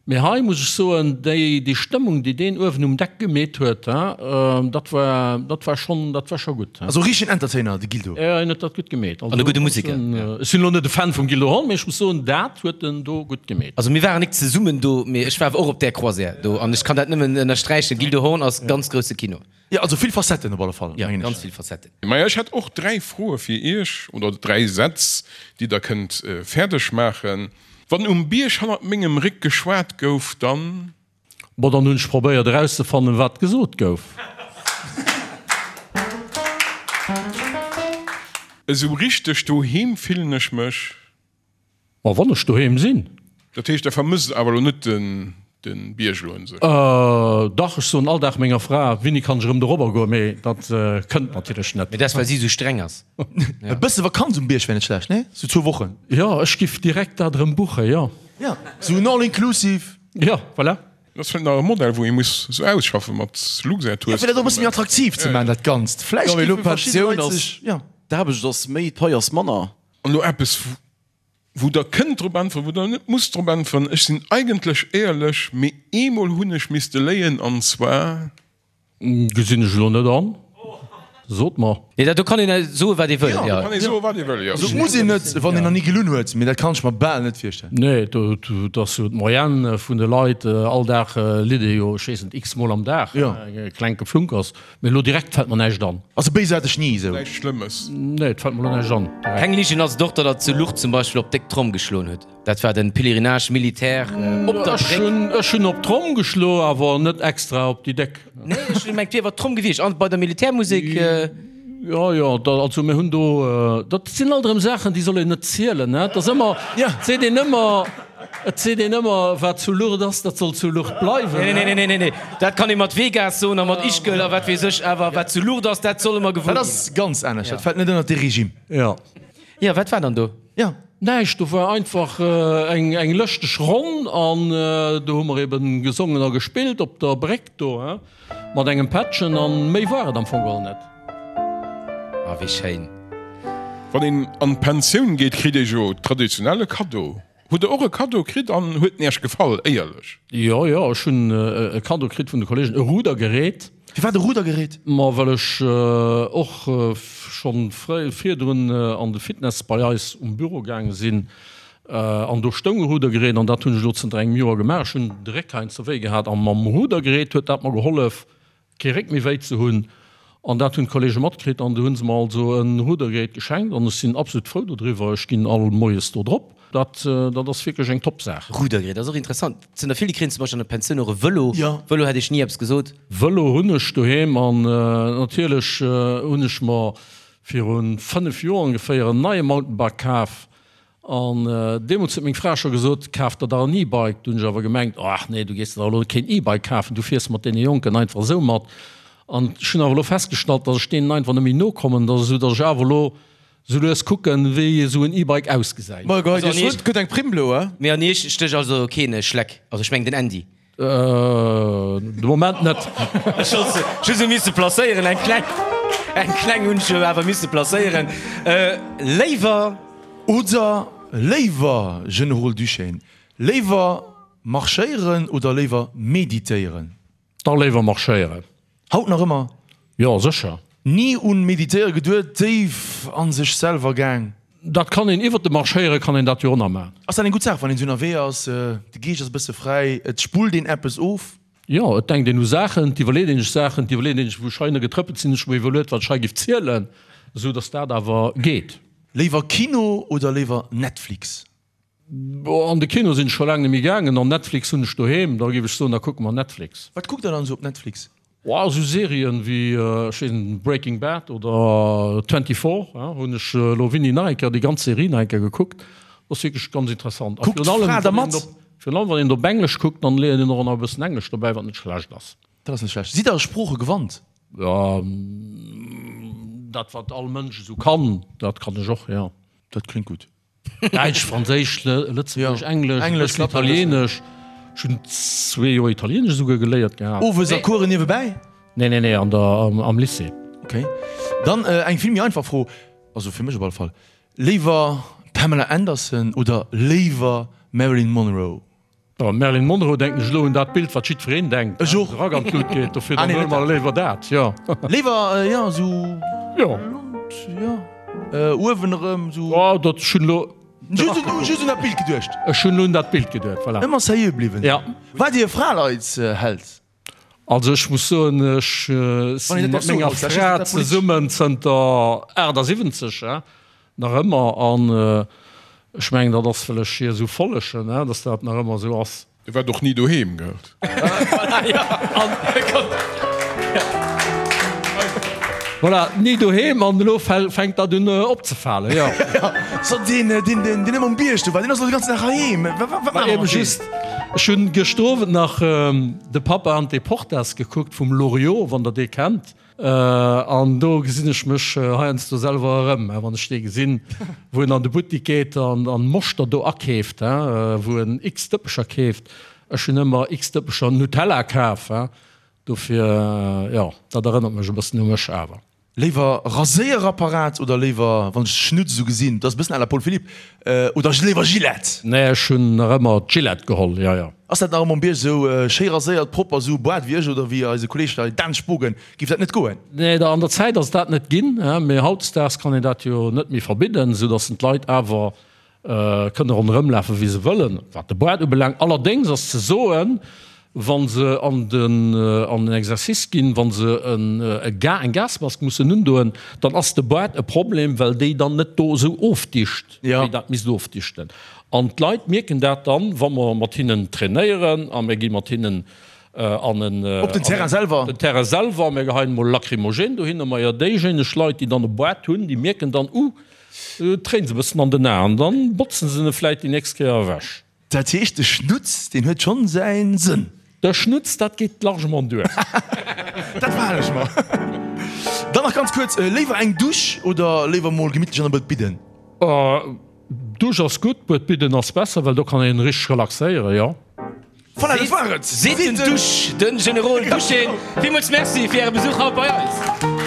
Mee hei muss ech soen, déi, déi Stëmmung, déi deen uewen um Deck gemeet huet, dat war, dat war schonn, dat war scho gutt. Also richtegen Entertainer, de Gildo. Jo, hien huet dat gutt gemeet. An e gudde Museker. Ech sinn elo net e Fan vum Gildo Horn, mee ech muss soen, dat huet en do gutt gemeet. Also mir waren nik zesummen do, mee ech war awer och op där Croisière do an ech kann dat nëmmen ënnersträichen, Gildo Horn ass ganz grousse Kino. Jo, also vill Facetten op alle Fall, Jo, mengen ech. ganz vill Facetten. Maja, ech hätt och 3 Froe fir Iech, oder 3 Sätz, déi Der kënnt fäerdeg maachen. Wann um Bierg hannert mengem Réck geschwat gouf, dann. Bon, dann hunn ech probéiert erauszefannen, wat gesot gouf. Esou richteg doheem fillen ech mech. Ma wann ech doheem sinn. Dat heescht, Der vermësst awer elo net de Bierg elo un sech? Dach, ech soen all Dag menger Fra, Wéini kann ech erëm dorobber goen? Mee dat kënnt natierlech net. Mee dat ass, well si esou streng ass. E bësse Vakanz um Bierg wär net schlecht, nee? Sou zwou Wochen. Jo, ech giff direkt dat erëm buchen, jo. Jo, sou en All-inclusive. Jo, voilà. Dat ass vläicht nach e Modell, wou ee muss sou ausschaffen mat Luxair-Tours. Jo, fir dat och e bësse méi attraktiv ze maachen, dat Ganzt. Vläicht Jo, mee elo géife verschidde Pensioun Leit ass, sech, jo. d'Aarbecht ass méi, d'Pai ass manner. An elo eppes, wou Der kënnt drop äntweren, wou Der net musst drop äntweren, Ech sinn eigentlech éierlech, mee eemol hunn ech misste léien, an zwar. Gesinn ech elo net an. Sot mer. Nee, dat do kann een soen, wat ee wëll, jo. Do kann ee soen, wat ee wëll, jo. Also et muss een net, wann een nach ni gelunn huet, mee dat kann ech mer bal net virstellen. Nee, do ass jo d'Moyenne vun de Leit, all Dag litt ee jo, ech weess net, x-mol am Dag, e klenke Flunkers. Mee elo direkt fält mer näischt an. Also béis hat ech ni esou. Näischt Schlëmmes. Nee, et fält mer elo näischt an direkt. Keng Ligen ass et och, datt der zu Lourdes zum Beispill op déck Tromm geschloen hutt. Dat war den Pèlerinage militaire op der Bréck. Ech hunn op d'Tromm geschloen, awer net extra op déi déck. Nee, ech hunn gemengt, et wier awer d'Tromm gewiescht an bei der Militärmusek. Jo, jo, da, also mir hunn do, dat sinn alt erëm Saachen, déi soll een net zielen, ne? Et ass ëmmer, et seet een ëmmer, et seet een ëmmer, wat zu Lourdes ass, dat soll zu Lourdes bleiwen, Nee, nee, nee, nee, nee, dat kann ee mat Vegas soen a mat Ischgl a wat weess ech, awer wat zu Lourdes ass, dat soll ëmmer gewuer Dat ginn. ass ganz anescht, dat fält net ënnert dee Regime. Jo. Jo, wat war dann do? Jo. Näischt, do war einfach eng eng lëschteg Ronn an do hu mer eben gesongen a gespillt op der Bréck do, hein, mat engem Pättchen an méi war et am Fong geholl net. Ah, wéi schéin. Wann een an d'Pensioun geet, kritt ee jo traditionell e Kaddo. Hutt der och e Kaddo kritt an huet en Iech gefall, éierlech? Jo, jo, ech hunn e Kaddo kritt vun de Kollegen, e Rudergerät. Firwat e Rudergerät? Ma well ech och schonn fréi virdrun an de Fitness bei eis um Büro gaange sinn an do stoung e Rudergerät an dat hunn ech elo zënter engem Joer gemaach. Ech hunn de Réck heiansdo wéi gehat a mam Rudergerät huet dat mer gehollef kee Réck méi wéi ze hunn an dat hunn d'Kollege matkritt an du hunn se mer also e Rudergerät geschenkt an ech sinn absolut frou dodriwwer. Ech ginn all moies do drop. Dat dat ass wierklech eng top Saach. Rudergerät ass och interessant. Et sinn der vill, déi kréien zum Beispill an der Pensioun och e Vëlo. Vëlo hätt ech ni eppes gesot. Vëlo hunn ech doheem an natierlech hunn ech mer viru 5 Joer ongeféier en neie Mountainbike kaf An deemools huet meng Fra scho gesot, Kaf der dach en E-Bike. Du hunn ech awer gemengt, Ach nee, du gees der dach elo keen E-Bike kafen, du fiers mat deene Jonken einfach esou mat. An ech hunn awer elo festgestallt, datt ech deenen einfach net méi nokommen, datt esou datt ech awer elo esou lues kucken, wéi esou en E-Bike ausgesäit. Ma geheit Iech wuel, et gëtt eng Primm elo, eh? Mee an Iech stécht also keen Schleck, also ech mengen den Andy. De Moment net. Ech hunn se just esou misse placéieren, eng kleng, eng kleng hunn ech jo awer misse placéieren. Léiwer. Oder léiwer, Generol Duschène, léiwer marschéieren oder léiwer meditéieren? Da léiwer marschéieren. Haut nach ëmmer? Jo, sécher. Ni un Meditéiere geduet, déif an sech selwer gaang? Dat kann een, iwwert de Marschéiere kann een dat jo och nach maachen. Ass dat eng gutt Saach, wann een esou ënnerwee ass, de Geescht ass e bësse fräi, et spullt een eppes of? Jo, et denkt een u Saachen, et iwwerleet een sech Saachen, et iwwerleet een sech, wou ech hei getrëppelt sinn, ech hu mer iwwerluet, wat ech hei giff zielen, esou datt dat awer geet. Léiwer Kino oder léiwer Netflix? An de Kino sinn ech scho laang net méi gaangen an Netflix hunn ech doheem, da géif ech soen, da kucke mer Netflix. Wat kuckt der dann esou op Netflix? Oh, esou Serien wéi, ech weess net, Breaking Bad oder 24 hunn ech elo winni nach eng Kéier déi ganz Serie nach eng Kéier gekuckt. Dat ass wierklech ganz interessant. A Kuckt virun allem, d'Fra da wann een mat? op, virun allem wann een op Englesch kuckt, dann léiert een och nach e bëssen Englesch dobäi, wat net schlecht ass. Dat ass net schlecht. Sidd der Sprooche gewannt? Jo, dat wat all Mënsch esou kann, dat kann ech och, jo. Dat kléngt gutt. Däitsch, Franséisch, Lëtzebuergesch, Englesch, e bëssen Italienesch. Ech hunn zwee Joer Italienesch esouguer geléiert gehat. Owes a Coursen niewebäi? Nee, nee, nee, an der, am Lycée. Ok. Dann eng vill méi einfach Fro, also fir mech op alle Fall, Léiwer Pamela Anderson oder léiwer Marilyn Monroe? Bon, Marilyn Monroe denken ech elo un dat Bild, wat jiddwereen denkt, Ech och. de Rack an d'Lut geet. Dofir Ah, dann nee, huele net mer dat. léiwer dat, jo. Léiwer, jo, esou Jo. blond, jo, uewen erëm esou. Oh, dat, ech hunn elo de Just Rack un, gekuckt. just un dat Bild geduecht. Ech hunn elo un dat Bild geduet, voilà. Ëmmer seriö bliwwen. Ja. Waart Dir e Fraleitsheld? Also ech muss soen, ech si mat menger Fra zesummen zënter 78, nach ëmmer, an ech mengen dat ass well ech hir esou follegen, datt dat nach ëmmer esou ass. E waart och ni doheem, gell? Voilà, ni doheem an elo fänkt dat un opzefalen, jo. So deen, deen, deen ëmmer um Bierg do war, deen ass elo de ganzen Dag heiheem. Wat, wat maache mer mat deem? Just, ech hunn gëschter Owend nach De Papa an d'Deportas gekuckt vum Loriot, wann der dee kennt. An do gesinn ech mech heiansdo selwer erëm, wann ech dee gesinn, wou en an de Buttik geet an Moschter do akeeft, wou en x Dëppecher keeft. Ech hunn ëmmer x Dëppecher Nutella kaf. Dofir, jo, dat erënnert mech e bëssen u mech awer. Léiwer Raséierapparat oder léiwer, wann ech Schnutz esou gesinn, dat ass e bëssen à la Paul Philipp, oder léiwer Gillette? Nee, ech hunn nach ëmmer d'Gillette geholl, jo, jo. Ass dat nach ëmmer um Bierg esou schéi raséiert, propper, esou Boart wéi ech oder wéi eise Kolleeg hei Dan Spogen, géif dat net goen? Nee, an der Zäit ass dat net ginn, mee hautdesdaags kann een dat jo net méi verbidden, esou datt d'Leit awer Kënne ronderëm lafen, wéi se wëllen, wat de Boart ubelaangt. Allerdéngs ass ze soen, wa se an den an den Exercice ginn, wa se eng Gasmask mussen undoen, dann ass de Boart e Problem, well déi dann net do esou ofdicht, wéi dat misst ofdichten. An d'Leit mierken dat dann, wa mer mat hinnen trainéieren a mir gi mat hinnen an en Op den Terrain selwer? Den Terrain selwer, mir geheien emol Lacrymogène dohinner. Majo, déijéineg Leit, déi dann e Boart hunn, déi mierken dann, Uh, Tréin se bëssen an den Aen, dann botzen se en vläit déi nächst Kéier ewech. Dat heescht de Schnutz deen huet schonn säin Sënn? De Schnutz, dat geet largement duer. Dat behalen ech mer. Dann nach ganz kuerz, léiwer eng Dusch oder léiwer mol gemittlech an e Buet bidden? Dusch ass gutt, Buet bidden ass besser, well do kann een richteg relaxéieren, jo. Voilà, dat war et! Seet den Dusch, den Generol Duschén. Villmools Merci fir Äre Besuch haut bei eis.